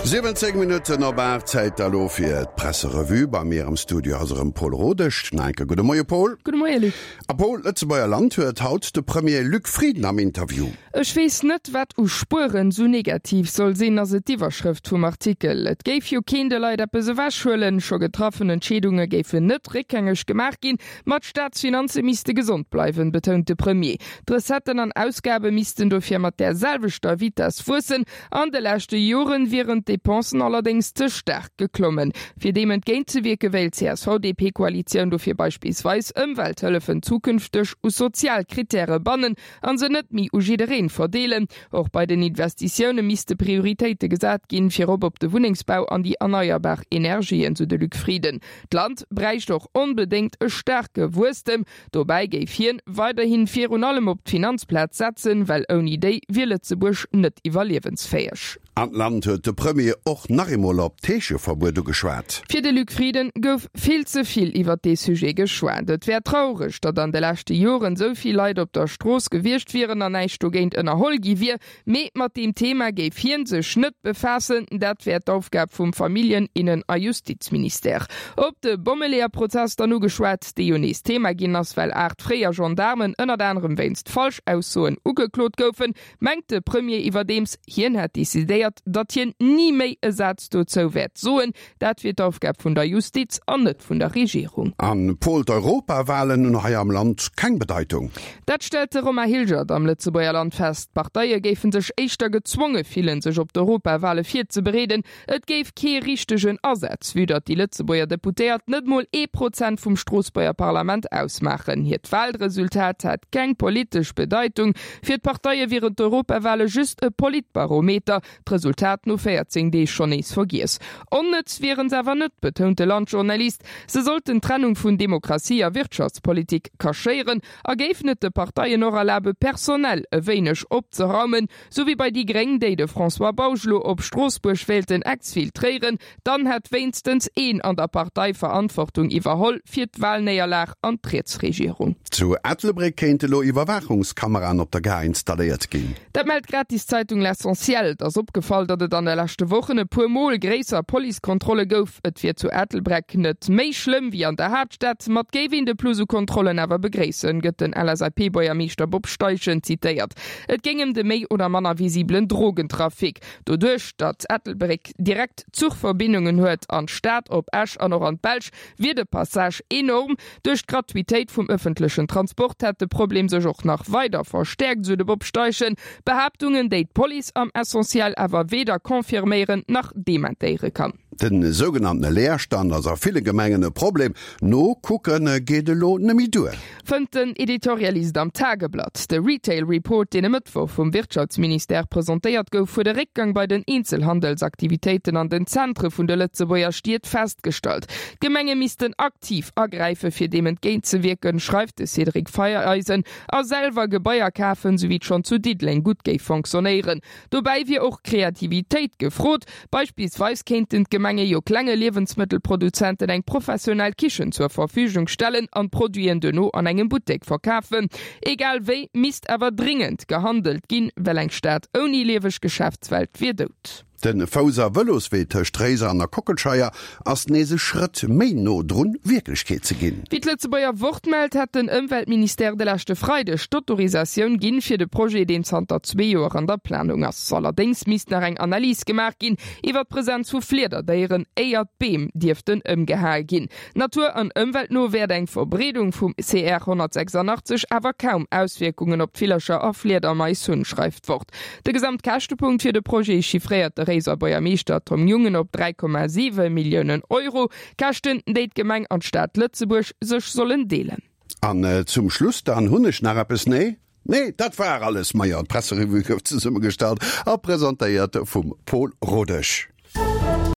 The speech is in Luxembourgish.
17 Minutten op 8, Zäit da lo fir d'Presserevue. Bei mir am Studio ass erëm Paul Rodesch. Nach eng Kéier gudde Moie Paul. Gudde Moie Luc. A Paul, d'Lëtzebuerger Land huet haut de Premier Luc Frieden am Interview. Ech weess net, wat u Spueren sou negativ soll sinn, ass et d'Iwwerschrëft vum Artikel. Et géif jo keen de Leit eppes ewechhuelen, scho getraffen Entscheedunge géifen net réckgängeg gemaach ginn, ma d'Staatsfinanze misste gesond bleiwen, betount de Premier. D'Recetten an Ausgabe missten dofir mat där selwechter Vitess wuessen. An de leschte Joren wieren d'Depensen allerdéngs ze staark geklommen. Fir deem entgéintzewierke wéilt d'CSV-DP-Koalitioun dofir beispillsweis Ëmwelthëllefen zukünfteg u sozial Krittäre bannen An se net méi u jiddereen verdeelen. Och bei den Investitioune misste Prioritéite gesat ginn, virop op de Wunnengsbau an déi erneierbar Energien, sou de Luc Frieden. D'Land bräicht och onbedéngt e staarke Wuesstem. Dobäi géif hien weiderhin virun allem op d'Finanzplaz setzen, well ouni déi wier Lëtzebuerg net iwwerliewensfäeg. An d'Land huet de Premier och nach eemol op d'Heescheverbuet ugeschwat. Fir de Luc Frieden gouf vill ze vill iwwer dee Sujet geschwat. Et wär traureg, datt an de leschte Joren esou vill Leit op der Strooss gewiescht wieren an näischt dogéint ënnerholl gi wier. Mee mat deem Thema géif hien sech net befaassen, dat wär d'Aufgab vum Familljen-, Innen a Justizministère. Op de Bommeleeër-Prozess dann ugeschwat, dee jo nees Thema ginn ass, well 8 fréier Gendaarmen ënnert anerem wéinst Falschaussoen ugeklot goufen, mengt de Premier iwwerdeems, hien hätt decidéiert, datt hien ni méi e Saz dozou wäert soen. Dat wier d'Aufgab vun der Justiz an net vun der Regierung. An Paul, d'Europawahlen hunn hei am Land keng Bedeitung. Dat stellt de Romain Hilgert am Lëtzebuerger Land fest. D'Parteie géife sech éischter gezwonge fillen, sech op d'Europawale virzebereeden. Et géif kee richtegen Asaz, vue datt déi Lëtzebuerger Deputéiert net mol ee Prozent vum Stroossbuerger Parlament ausmaachen. Hiert Walresultat hätt keng politesch Bedeitung. Fir d'Parteie wieren d'Europawale just e Politbarometer, d'Resultat no 14 Deeg schonn nees vergiess. Onnëtz wieren se awer net, betount de Land-Journalist. Se sollten d'Trennung vun Demokratie a Wirtschaftspolitik kaschéieren a géifen et de Parteien och erlabe personell e wéineg opzeraumen, Sou wéi bei déi gréng, déi de François Bausch lo op Stroossbuerg wéilten exfiltréieren, dann hätt wéinstens een an der Partei Verantwortung iwwerholl fir d'Wahlnéierlag an d'Rietsregierung. Zu Ettelbréck kéinte lo Iwwerwaachungskameraen op der Gare installéiert ginn. Dat mellt d'Gratiszeitung L'Essentiel. Et ass opgefall, datt et an de leschte Wochen e puer Mol gréisser Policekontrolle gouf. Et wier zu Ettelbreck net méi schlëmm wéi an der Haaptstad, ma et géif een de Plus u Kontrollen awer begréissen, gëtt den LSAP-Buergermeeschter Bob Steichen zitéiert. Et géing ëm de méi oder manner visibelen Drogentrafic. Doduerch, datt Ettelbréck direkt Zuchverbindungen huet an d'Stad, op Esch an och an d'Belsch, wier de Passage enorm. Duerch d'Gratuitéit vum ëffentlechen Transport hätt de Problem sech och nach weider verstäerkt, esou de Bob Steichen. Behaaptungen, déi d'Police am Essentiel awer weder confirméieren nach dementéiere kann. De sougenanntene Leerstand ass a ville Gemengen e Problem. Nokucke geet elo net méi duer. Fënnt den Editorialist am Tageblatt. De Retail Report, deen e Mëttwoch vum Wirtschaftsministère presentéiert gouf, huet e Réckgang bei den Eenzelhandelsaktivitéiten an den Zentre vun de Lëtzebuerger Stied festgestallt. D'Gemenge missten aktiv agräife fir deem entgéintzewierken, schreift de Cédric Feiereisen, a selwer Gebaier kafen, sou wéi et schonn zu Diddeleng gutt géif fonctionnéieren. Dobäi wier och Kreativitéit gefrot. Beispillsweis kéinten d'Gemenge jo klenge Liewensmëttelproduzenten eng professionell Kichen zur Verfügung stellen an d'Produiten duerno an engem Buttek verkafen. Egal wéi misst awer dringend gehandelt ginn, well eng Stad ouni lieweg Geschäftswelt wier dout. De Fouss a Vëloswee tëscht Réiser an der Kockelscheier ass nees e Schrëtt méi no drun, Wierklechkeet ze ginn. Wéi d'Lëtzebuerger Wort mellt, hätt den Ëmweltministère de leschte Freideg d'Autorisatioun ginn fir de Projet, deen zanter zwee Joer an der Planung ass. Allerdéngs misst nach eng Analys gemaach ginn iwwer d'Presenz vu Fliederdéieren, éier d'Beem dierften ëmgehae ginn. Natur an Ëmwelt no wäert eng Verbreedung vum CR 186 awer kaum Auswierkungen op d'Villercher a Fliedermais hunn, schreift d'Wort. De Gesamtkäschtepunkt fir de Projet chiffréiert de Réiser Buergermeeschter Tom Jungen op 3,7 Milliounen Euro. Käschten, déi d'Gemeng an d'Stad Lëtzebuerg sech sollen deelen. An zum Schluss dann hunn ech nach eppes, nee? Nee, dat war alles. Majo, d'Presserevue gouf zesummegestallt a presentéiert vum Pol Rodesch.